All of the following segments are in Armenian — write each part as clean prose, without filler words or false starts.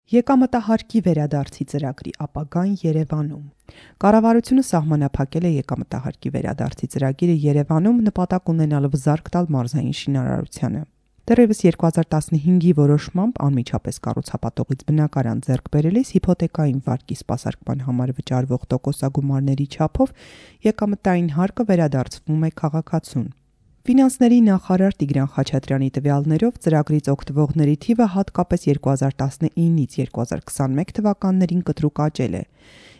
Եկամտահարկի վերադարձի ծրագրի ապագան Երևանում։ Կառավարությունը սահմանափակել է եկամտահարկի վերադարձի ծրագիրը Երևանում նպատակ ունենալով զարկ տալ մարզային շինարարությանը։ Դեռևս 2015-ի որոշմամբ անմիջապես կառուցապատողից բնակարան ձեռք բերելիս հիփոթեկային վարկի սպասարկման համար վճարվող տոկոսագումարների չափով եկամտային հարկը վերադարձվում է քաղաքացուն։ Ֆինանսների նախարար Տիգրան Խաչատրյանի տվյալներով ծրագրից օգտվողների թիվը հատկապես 2019-ից 2021 թվականներին կտրուկ աճել է։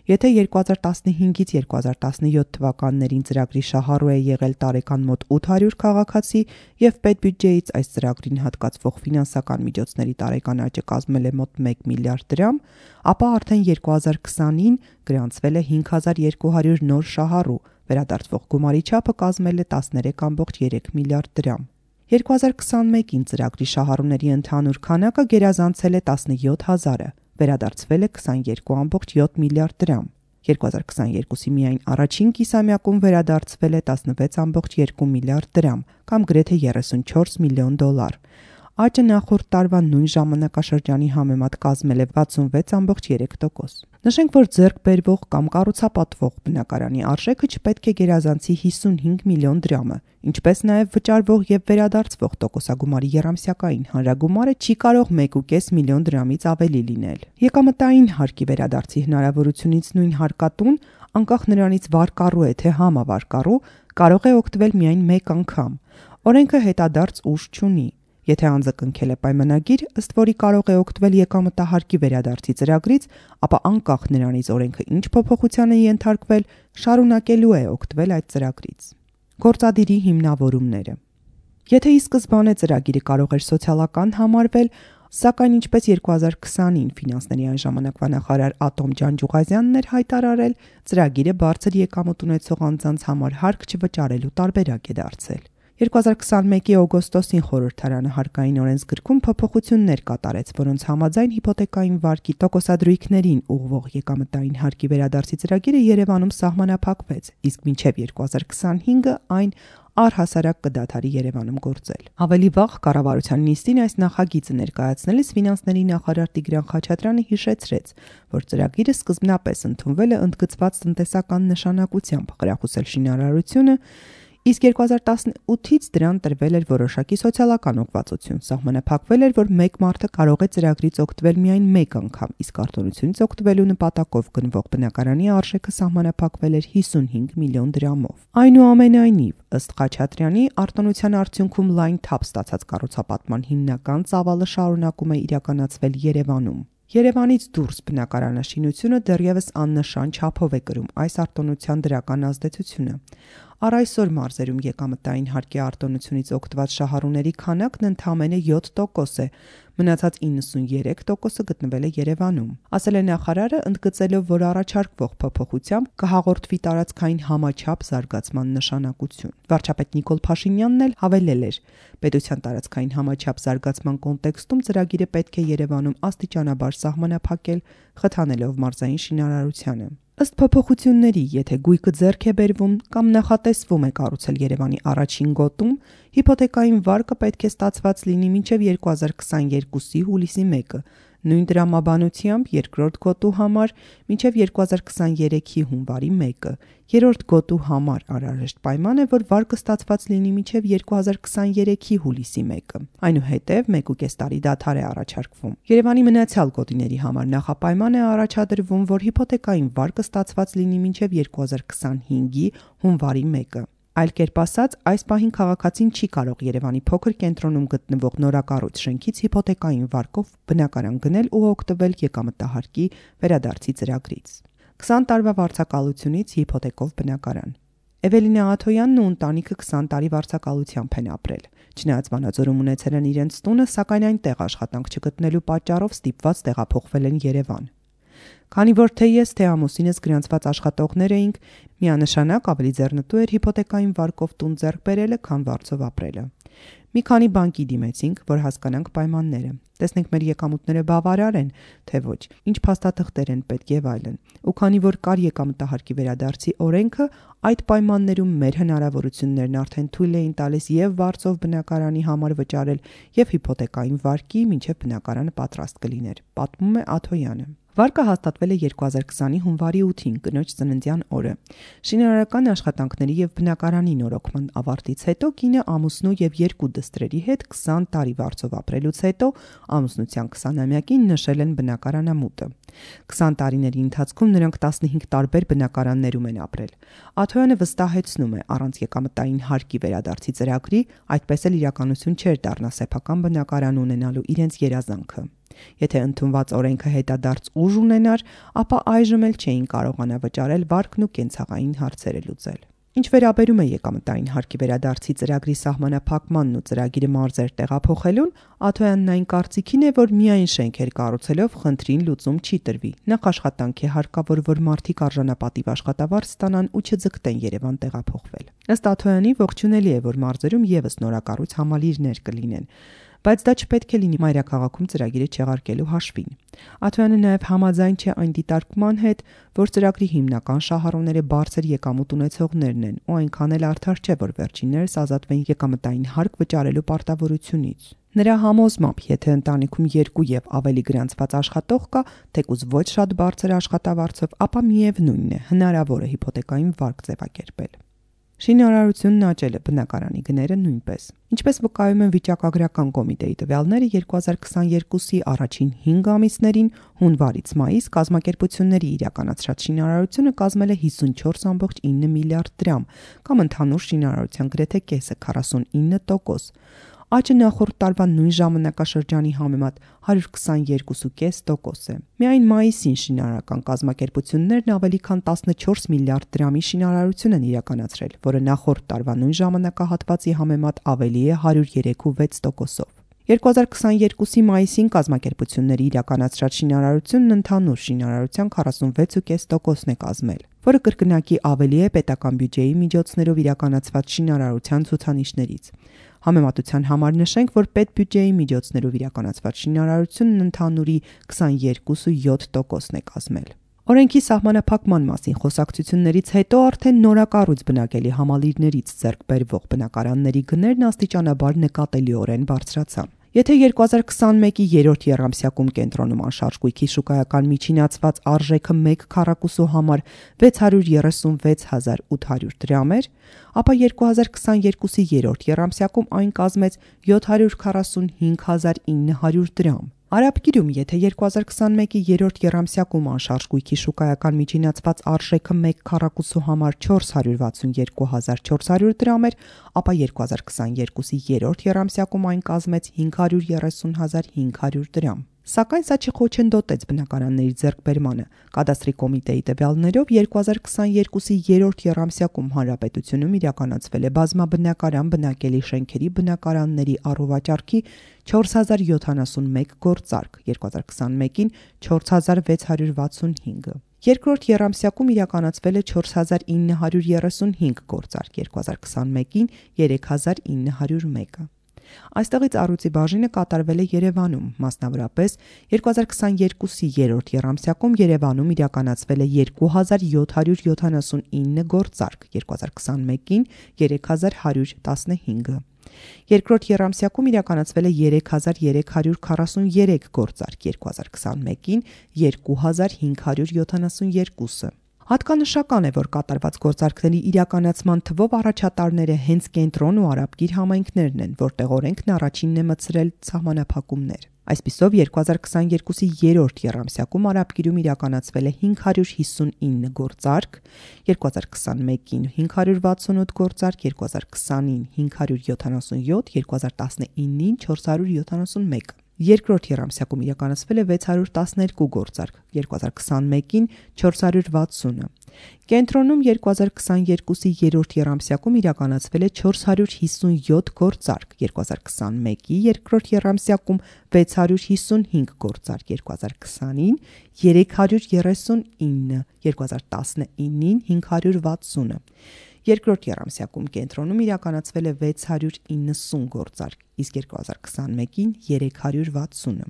Եթե 2015-ից 2017 թվականներին ծրագրի շահառու է եղել տարեկան մոտ 800 քաղաքացի եւ պետբյուջեից այս ծրագրին հատկացվող ֆինանսական միջոցների տարեկան աճը կազմել է մոտ 1 միլիարդ դրամ, ապա արդեն 2020-ին գրանցվել է 5200 նոր շահառու, վերադարձվող գումարի չափը կազմել է 13.3 միլիարդ դրամ։ 2021-ին ծրագրի շահառուների ընդհանուր քանակը գերազանցել է 17000-ը, վերադարձվել է 22.7 միլիարդ դրամ։ 2022-ի միայն առաջին կիսամյակում վերադարձվել է 16.2 միլիարդ դրամ, կամ գրեթե 34 միլիոն դոլար։ Աճը նախորդ տարվա նույն ժամանակաշրջանի համեմատ կազմել է 66.3%։ Նշենք, որ ձեռք բերվող կամ կառուցապատվող բնակարանի արժեքը չպետք է գերազանցի 55 միլիոն դրամը, ինչպես նաև վճարվող եւ վերադարձվող տոկոսագումարի եռամսյակային հանրագումարը չի կարող 1.5 միլիոն դրամից ավելի լինել։ Եկամտային հարկի վերադարձի հնարավորությունից նույն հարկատուն, անկախ նրանից վարկառու է թե համավարկառու, կարող է օգտվել միայն մեկ անգամ։ Օրենքը հետադարձ ուժ չունի։ Եթե անձը կնքել է պայմանագիր, ըստ որի կարող է օգտվել եկամտահարկի վերադարձի ծրագրից, ապա անկախ նրանից օրենքը ինչ փոփոխության է ենթարկվել, շարունակելու է օգտվել այդ ծրագրից։ Գործադիրի հիմնավորումները։ Եթե ի սկզբանե ծրագիրը կարող էր սոցիալական համարվել, սակայն ինչպես 2020-ին ֆինանսների այն ժամանակվա նախարար Ատոմ Ջանջուղազյանն էր հայտարարել, ծրագիրը բարձր եկամուտ ունեցող անձանց համար հարկ չվճարելու տարբերակ է դարձել։ 2021-ի օգոստոսին խորհրդարանը հարկային օրենսգրքում փոփոխություններ կատարեց, որոնց համաձայն հիփոթեկային վարկի տոկոսադրույքներին ուղղվող եկամտային հարկի վերադարձի ծրագիրը Երևանում սահմանափակվեց, իսկ մինչև 2025-ը այն առհասարակ կդադարի Երևանում գործել։ Ավելի վաղ կառավարության նիստին այս նախագիծը ներկայացնելիս ֆինանսների նախարար Տիգրան Խաչատրյանը հիշեցրեց, որ ծրագիրը սկզբնապես ընդունվել է ընդգծված տնտեսական նշանակությամբ խրախուսել շինարարությունը, իսկ 2018-ից դրան տրվել էր որոշակի սոցիալական ուղղվածություն, սահմանափակվել էր, որ մեկ մարդը կարող է ծրագրից օգտվել միայն մեկ անգամ, իսկ արտոնությունից օգտվելու նպատակով գնվող բնակարանի արժեքը սահմանափակվել էր 55 միլիոն դրամով։ Այնուամենայնիվ, ըստ Խաչատրյանի, արտոնության արդյունքում լայն թափ ստացած կառուցապատման հիմնական ծավալը շարունակում է իրականացվել Երևանում։ Երևանից դուրս բնակարանաշինությունը դեռևս աննշան չափով է կրում այս արտոնության դրական ազդեցությունը։ Առ այսօր մարզերում եկամտային հարկի արտոնությունից օգտված շահառուների քանակն ընդամենը 7% է, մնացած 93%-ը գտնվել է Երևանում։ Ասել է նախարարը, ընդգծելով, որ առաջարկվող փոփոխությամբ կհաղորդվի տարածքային համաչափ զարգացման նշանակություն։ Վարչապետ Նիկոլ Փաշինյանն էլ հավելել էր. պետության տարածքային համաչափ զարգացման կոնտեքստում ծրագիրը պետք է Երևանում աստիճանաբար սահմանափակել, խթանելով մարզային շինարարությանը։ Ըստ փոփոխությունների, եթե գույքը ձեռք է բերվում կամ նախատեսվում է կառուցել Երևանի առաջին գոտում, հիփոթեկային վարկը պետք է ստացված լինի մինչև 2022-ի հուլիսի 1-ը, նույն տրամաբանությամբ երկրորդ գոտու համար մինչև 2023-ի հունվարի 1-ը, երրորդ գոտու համար անհրաժեշտ պայման է, որ վարկը ստացված լինի մինչև 2023-ի հուլիսի 1-ը։ Այնուհետև 1.5 տարի դադար է առաջարկվում։ Երևանի մնացյալ գոտիների համար նախապայման է առաջադրվում, որ հիփոթեկային վարկը ստացված լինի մինչև 2025-ի հունվարի 1-ը։ Այլ կերպ ասած, այս պահին քաղաքացին չի կարող Երևանի փոքր կենտրոնում գտնվող նորակառույց շենքից հիփոթեկային վարկով բնակարան գնել ու օգտվել եկամտահարկի վերադարձի ծրագրից։ 20 տարվա վարձակալությունից հիփոթեկով բնակարան։ Էվելինա Աթոյանն ու ընտանիքը 20 տարի վարձակալությամբ են ապրել։ Չնայած Վանաձորում ունեցել են իրենց տունը, սակայն այնտեղ աշխատանք չգտնելու պատճառով ստիպված տեղափոխվել են Երևան։ Քանի որ թե ես, թե ամուսինս գրանցված աշխատողներ էինք, միանշանակ ավելի ձեռնտու էր հիփոթեկային վարկով տուն ձեռք բերելը, քան վարձով ապրելը։ Մի քանի բանկի դիմեցինք, որ հասկանանք պայմանները։ Տեսնենք մեր եկամուտները բավարար են, թե ոչ, ինչ փաստաթղթեր են պետք եւ այլն։ Ու քանի որ կար եկամտահարկի վերադարձի օրենքը, այդ պայմաններում մեր հնարավորություններն արդեն թույլ էին տալիս եւ վարձով բնակարանի համար վճարել եւ հիփոթեկային վարկի, մինչեւ բնակարանը պատրաստ կլիներ, պատմում է Աթոյանը։ Վարկը հաստատվել է 2020-ի հունվարի 8-ին, կնոջ ծննդյան օրը։ Շինարարական աշխատանքների եւ բնակարանի նորոգման ավարտից հետո կինը ամուսնու եւ 2 դստրերի հետ 20 տարի վարձով ապրելուց հետո ամուսնության 20-ամյակին նշել են բնակարանամուտը։ 20 տարիների ընթացքում նրանք 15 տարբեր բնակարաններում են ապրել։ Աթոյանը վստահեցնում է, առանց եկամտային հարկի վերադարձի ծրագրի այդպես էլ իրականություն չէր դառնա սեփական բնակարան ունենալու իրենց երազանքը։ Եթե ընդունված օրենքը հետադարձ ուժ ունենար, ապա այժմ էլ չէին կարողանա վճարել վարկն ու կենցաղային հարցերը լուծել։ Ինչ վերաբերում է եկամտային հարկի վերադարձի ծրագրի սահմանափակմանն ու ծրագիրը մարզեր տեղափոխելուն, Աթոյանն այն կարծիքին է, որ միայն շենքեր կառուցելով խնդրին լուծում չի տրվի։ Նախ աշխատանք է հարկավոր, որ մարդիկ արժանապատիվ աշխատավարձ ստանան ու չձգտեն Երևան տեղափոխվել։ Ըստ Աթոյանի ողջունելի է, որ մարզերում եւս նորակառույց համալիրներ կլինեն, բայց դա չպետք է լինի մայրաքաղաքում ծրագիրը չեղարկելու հաշվին։ Աթոյանը նաև համաձայն չէ այն դիտարկման հետ, որ ծրագրի հիմնական շահառուները բարձր եկամուտ ունեցողներն են ու այնքան էլ արդար չէ, որ վերջիններս ազատվեն եկամտային հարկ վճարելու պարտավորությունից։ Նրա համոզմամբ, եթե ընտանիքում 2 եւ ավելի գրանցված աշխատող կա, թեկուզ ոչ շատ բարձր աշխատավարձով, ապա միևնույնն է, հնարավոր է հիփոթեկային վարկ ձևակերպել։ Շինարարությունն աճել է, բնակարանի գները նույնպես։ Ինչպես վկայում են վիճակագրական կոմիտեի տվյալները, 2022-ի առաջին 5 ամիսներին հունվարից մայիս կազմակերպությունների իրականացրած շինարարությունը կազմել է 54.9 միլիարդ դրամ, կամ ընդհանուր շինարարության գրեթե կեսը 49%։ Աճը նախորդ տարվա նույն ժամանակաշրջանի համեմատ 122.5% է։ Միայն մայիսին շինարարական կազմակերպություններն ավելի քան 14 միլիարդ դրամի շինարարություն են իրականացրել, որը նախորդ տարվա նույն ժամանակահատվածի համեմատ ավելի է 103.6%-ով։ 2022-ի մայիսին կազմակերպությունների իրականացրած շինարարությունն ընդհանուր շինարարության 46.5%-ն է կազմել, որը կրկնակի ավելի է պետական բյուջեի միջոցներով իրականացված շինարարության ցուցանիշներից։ Համեմատության համար նշենք, որ պետբյուջեի միջոցներով իրականացված շինարարությունն ընդհանուրի 22.7%-ն է կազմել։ Օրենքի սահմանափակման մասին խոսակցություններից հետո արդեն նորակառույց բնակելի համալիրներից ձեռք բերվող բնակարանների գներն աստիճանաբար նկատելիորեն բարձրացան։ Եթե 2021-ի երրորդ եռամսյակում կենտրոնում անշարժ գույքի շուկայական միջինացված արժեքը 1 քառակուսու համար 636.800 դրամ էր, ապա 2022-ի երրորդ եռամսյակում այն կազմեց 745.900 դրամ։ Արաբկիրում, եթե 2021-ի երրորդ եռամսյակում անշարժ գույքի շուկայական միջինացված արժեքը 1 քառակուսու համար 462.400 դրամ էր, ապա 2022-ի երրորդ եռամսյակում այն կազմեց 530.500 դրամ։ Սակայն սա չխոչընդոտեց բնակարանների ձեռքբերմանը։ Կադաստրի կոմիտեի տվյալներով 2022-ի երրորդ եռամսյակում հանրապետությունում իրականացվել է բազմաբնակարան բնակելի շենքերի բնակարանների առուվաճառքի 4071 գործարք, 2021-ին 4665։ Երկրորդ եռամսյակում իրականացվել է 4935 գործարք, 2021-ին 3901։ Այստեղից առյուծի բաժինը կատարվել է Երևանում, մասնավորապես 2022-ի երրորդ եռամսյակում Երևանում իրականացվել է 2779 գործարք, 2021-ին 3115։ Երկրորդ եռամսյակում իրականացվել է 3343 գործարք, 2021-ին 2572։ Հատկանշական է, որ կատարված գործարքների իրականացման թվով առաջատարները հենց կենտրոն ու Արաբկիր համայնքներն են, որտեղ օրենքն առաջինն է մտցրել սահմանափակումներ։ Այսպիսով 2022-ի երրորդ եռամսյակում Արաբկիրում իրականացվել է 559 գործարք, 2021-ին 568 գործարք, 2020-ին 577, 2019-ին 471։ Երկրորդ եռամսյակում իրականացվել է 612 գործարք, 2021-ին 460։ Կենտրոնում 2022-ի երրորդ եռամսյակում իրականացվել է 457 գործարք, 2021-ի երկրորդ եռամսյակում 655 գործարք, 2020-ին 339, 2019-ին 560։ Երկրորդ եռամսյակում կենտրոնում իրականացվել է 690 գործարք, իսկ 2021-ին 360-ը։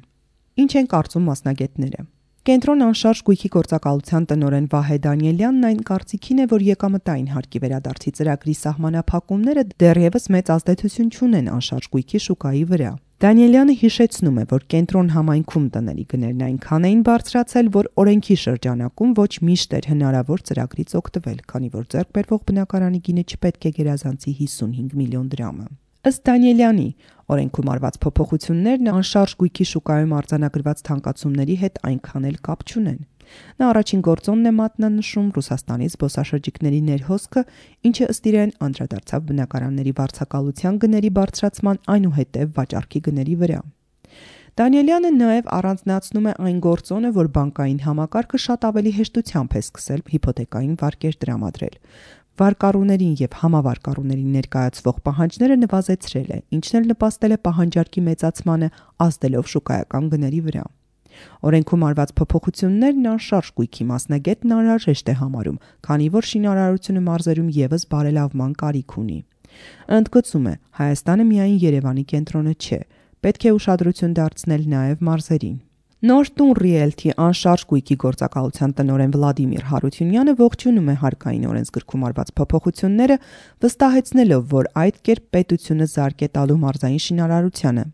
Ինչ են կարծում մասնագետները։ Կենտրոն անշարժ գույքի գործակալության տնօրեն Վահե Դանիելյանն այն կարծիքին է, որ եկամտային հարկի վերադարձի ծրագրի սահմանափակումները դեռևս մեծ ազդեցություն չունեն անշարժ գույքի շուկայի վրա։ Դանիելյանը հիշեցնում է, որ կենտրոն համայնքում տների գներն այնքան էին բարձրացել, որ օրենքի շրջանակում ոչ միշտ էր հնարավոր ծրագրից օգտվել, քանի որ ձեռք բերվող բնակարանի գինը չպետք է գերազանցի 55 միլիոն դրամը։ Ըստ Դանիելյանի, օրենքում արված փոփոխություններն անշարժ գույքի շուկայում արձանագրված թանկացումների հետ այնքան էլ կապ չունեն։ Նա առաջին գործոնն է մատնանշում Ռուսաստանի զբոսաշրջիկների ներհոսքը, ինչը ըստ իրեն անդրադարձավ բնակարանների վարձակալության գների բարձրացման այնուհետև վաճառքի գների վրա։ Դանիելյանը նաև առանձնացնում է այն գործոնը, որ բանկային համակարգը շատ ավելի հեշտությամբ է սկսել հիփոթեկային վարկեր տրամադրել։ Վարկառուներին եւ համավարկառուներին ներկայացվող պահանջները նվազեցրել է, ինչն էլ նպաստել է պահանջարկի մեծացմանը, ազդելով շուկայական գների վրա։ Օրենքում արված փոփոխություններն անշարժ գույքի մասնագետն անհրաժեշտ է համարում, քանի որ շինարարությունը մարզերում եւս բարելավման կարիք ունի։ Ընդգծում է, Հայաստանը միայն Երևանի կենտրոնը չէ, պետք է ուշադրություն դարձնել նաեւ մարզերին։ Նոր տուն Realty անշարժ գույքի գործակալության տնօրեն Վլադիմիր Հարությունյանը ողջունում է հարկային օրենսգրքում արված փոփոխությունները, վստահեցնելով, որ այդ կերպ պետությունը զարկ է տալու մարզային շինարարությանը։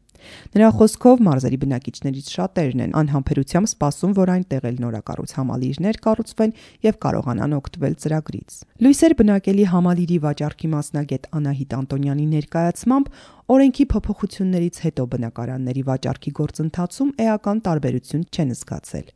Նրա խոսքով մարզերի բնակիչներից շատերն են անհամբերությամբ սպասում, որ այնտեղ էլ նորակառույց համալիրներ կառուցվեն եւ կարողանան օգտվել ծրագրից։ Լույսեր բնակելի համալիրի վաճառքի մասնագետ Անահիտ Անտոնյանի ներկայացմամբ օրենքի փոփոխություններից հետո բնակարանների վաճառքի գործընթացում էական տարբերություն չեն զգացել։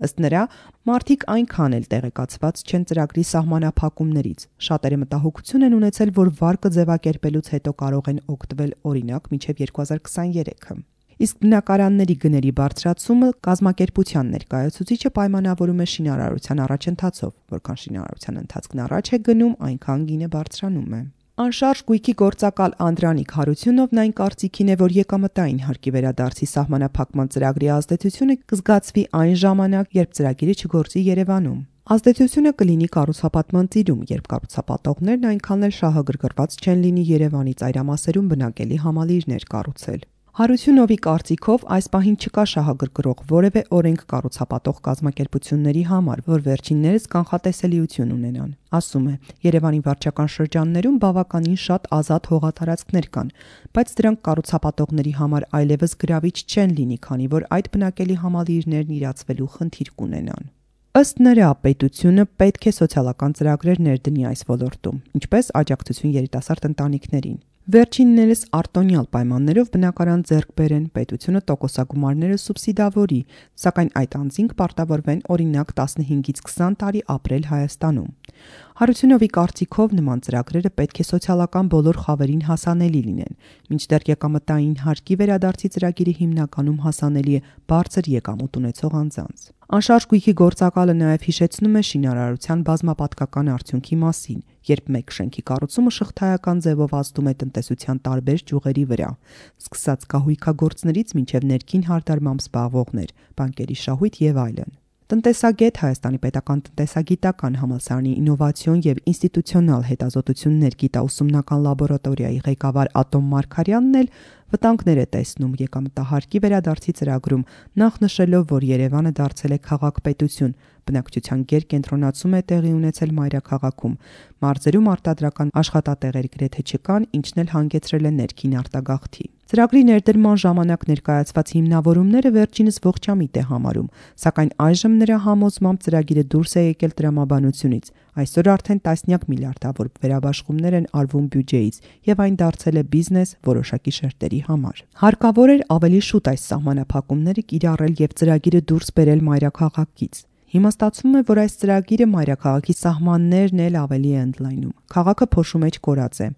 Ըստ նրա, մարդիկ այնքան էլ տեղեկացված չեն ծրագրի սահմանափակումներից։ Շատերը մտահոգություն են ունեցել, որ վարկը ձևակերպելուց հետո կարող են օգտվել օրինակ մինչև 2023-ը։ Իսկ բնակարանների գների բարձրացումը կազմակերպության ներկայացուցիչը պայմանավորում է շինարարության առաջընթացով, որքան շինարարության ընթացքն առաջ է գնում, այնքան գինը բարձրանում է։ Անշարժ գույքի գործակալ Անդրանիկ Հարությունովն այն կարծիքին է, որ եկամտային հարկի վերադարձի սահմանափակման ծրագրի ազդեցությունը կզգացվի այն ժամանակ, երբ ծրագիրը չգործի Երևանում։ Ազդեցությունը կլինի կառուցապատման ծիրում, երբ կառուցապատողներն այնքան էլ շահագրգռված չեն լինի Երևանի ծայրամասերում բնակելի համալիրներ կառուցել։ Հարությունովի կարծիքով այս պահին չկա շահագրգռող որևէ օրենք կառուցապատող կազմակերպությունների համար, որ վերջիններս կանխատեսելիություն ունենան։ Ասում է, Երևանի վարչական շրջաններում բավականին շատ ազատ հողատարածքներ կան, բայց դրանք կառուցապատողների համար այլևս գրավիչ չեն լինի, քանի որ այդ բնակելի համալիրներն իրացվելու խնդիր կունենան։ Ըստ նրա, պետությունը պետք է սոցիալական ծրագրեր ներդնի այս ոլորտում, ինչպես աջակցություն երիտասարդ ընտանիքներին։ Վերջիններս արտոնյալ պայմաններով բնակարան ձեռք բերեն, պետությունը տոկոսագումարները սուբսիդավորի, սակայն այդ անձինք պարտավորվեն օրինակ 15-ից 20 տարի ապրել Հայաստանում։ Հարությունովի կարծիքով նման ծրագրերը պետք է սոցիալական բոլոր խավերին հասանելի լինեն, մինչդեռ եկամտային հարկի վերադարձի ծրագիրը հիմնականում հասանելի է բարձր եկամուտ ունեցող անձանց։ Անշարժ գույքի գործակալը նաև հիշեցնում է շինարարության բազմապատկական արդյունքի մասին, երբ մեկ շենքի կառուցումը շղթայական ձևով ազդում է տնտեսության տարբեր ճյուղերի վրա, սկսած կահույքագործներից մինչև ներքին հարդարմամբ զբաղվողներ, բանկերի շահույթ եւ այլն։ Տնտեսագետ Հայաստանի պետական տնտեսագիտական համալսարանի ինովացիոն եւ ինստիտուցիոնալ հետազոտություններ գիտաուսումնական լաբորատորիայի ղեկավար Ատոմ Մարգարյանն էլ վտանգներ է տեսնում եկամտահարկի վերադարձի ծրագրում, նախ նշելով, որ Երևանը դարձել է քաղաք-պետություն, բնակչության գերկենտրոնացում է տեղի ունեցել մայրաքաղաքում, մարզերում արտադրական աշխատատեղեր գրեթե չկան, ինչն էլ հանգեցրել է ներքին արտագաղթի։ Ծրագրի ներդրման ժամանակ ներկայացված հիմնավորումները վերջինս ողջամիտ է համարում, սակայն այժմ նրա համոզմամբ ծրագիրը դուրս է եկել տրամաբանությունից։ Այսօր արդեն տասնյակ միլիարդավոր վերաբաշխումներ են արվում բյուջեից, եւ այն դարձել է բիզնես որոշակի շերտերի համար։ Հարկավոր էր ավելի շուտ այս սահմանափակումները կիրառել եւ ծրագիրը դուրս բերել մայրաքաղաքից։ Հիմա ստացվում է, որ այս ծրագիրը մայրաքաղաքի սահմաններն էլ ավելի է ընդլայնում։ Քաղաքը փոշու մեջ կորած է։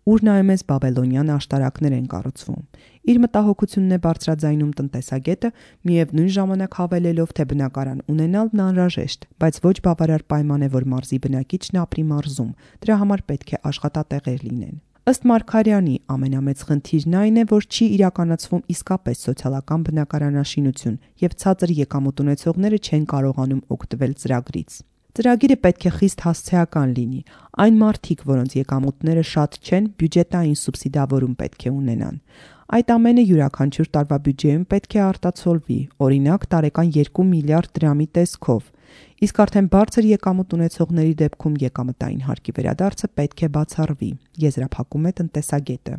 Ուր նայում ես բաբելոնյան աշտարակներ են կառուցվում։ Իր մտահոգությունն է բարձրաձայնում տնտեսագետը, միևնույն ժամանակ հավելելով, թե բնակարան ունենալն անհրաժեշտ, բայց ոչ բավարար պայման է, որ մարզի բնակիչն ապրի մարզում։ Դրա համար պետք է աշխատատեղեր լինեն։ Ըստ Մարգարյանի, ամենամեծ խնդիրն այն է, որ չի իրականացվում իսկապես սոցիալական բնակարանաշինություն եւ ցածր եկամուտ ունեցողները չեն կարողանում օգտվել ծրագրից։ Ծրագիրը պետք է խիստ հասցեական լինի։ Այն մարդիկ, որոնց եկամուտները շատ չեն, բյուջետային սուբսիդավորում պետք է ունենան։ Այդ ամենը յուրաքանչյուր տարվա բյուջեում պետք է արտացոլվի, օրինակ տարեկան 2 միլիարդ դրամի տեսքով։ Իսկ արդեն բարձր եկամուտ ունեցողների դեպքում եկամտային հարկի վերադարձը պետք է բացառվի, եզրափակում է տնտեսագետը։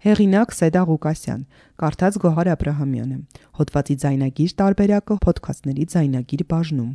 Հեղինակ Սեդա Ղուկասյան, կարդաց Գոհար Աբրահամյանը, հոդվածի ձայնագիր տարբերակը Փոդքասթների ձայնագիր բաժնում։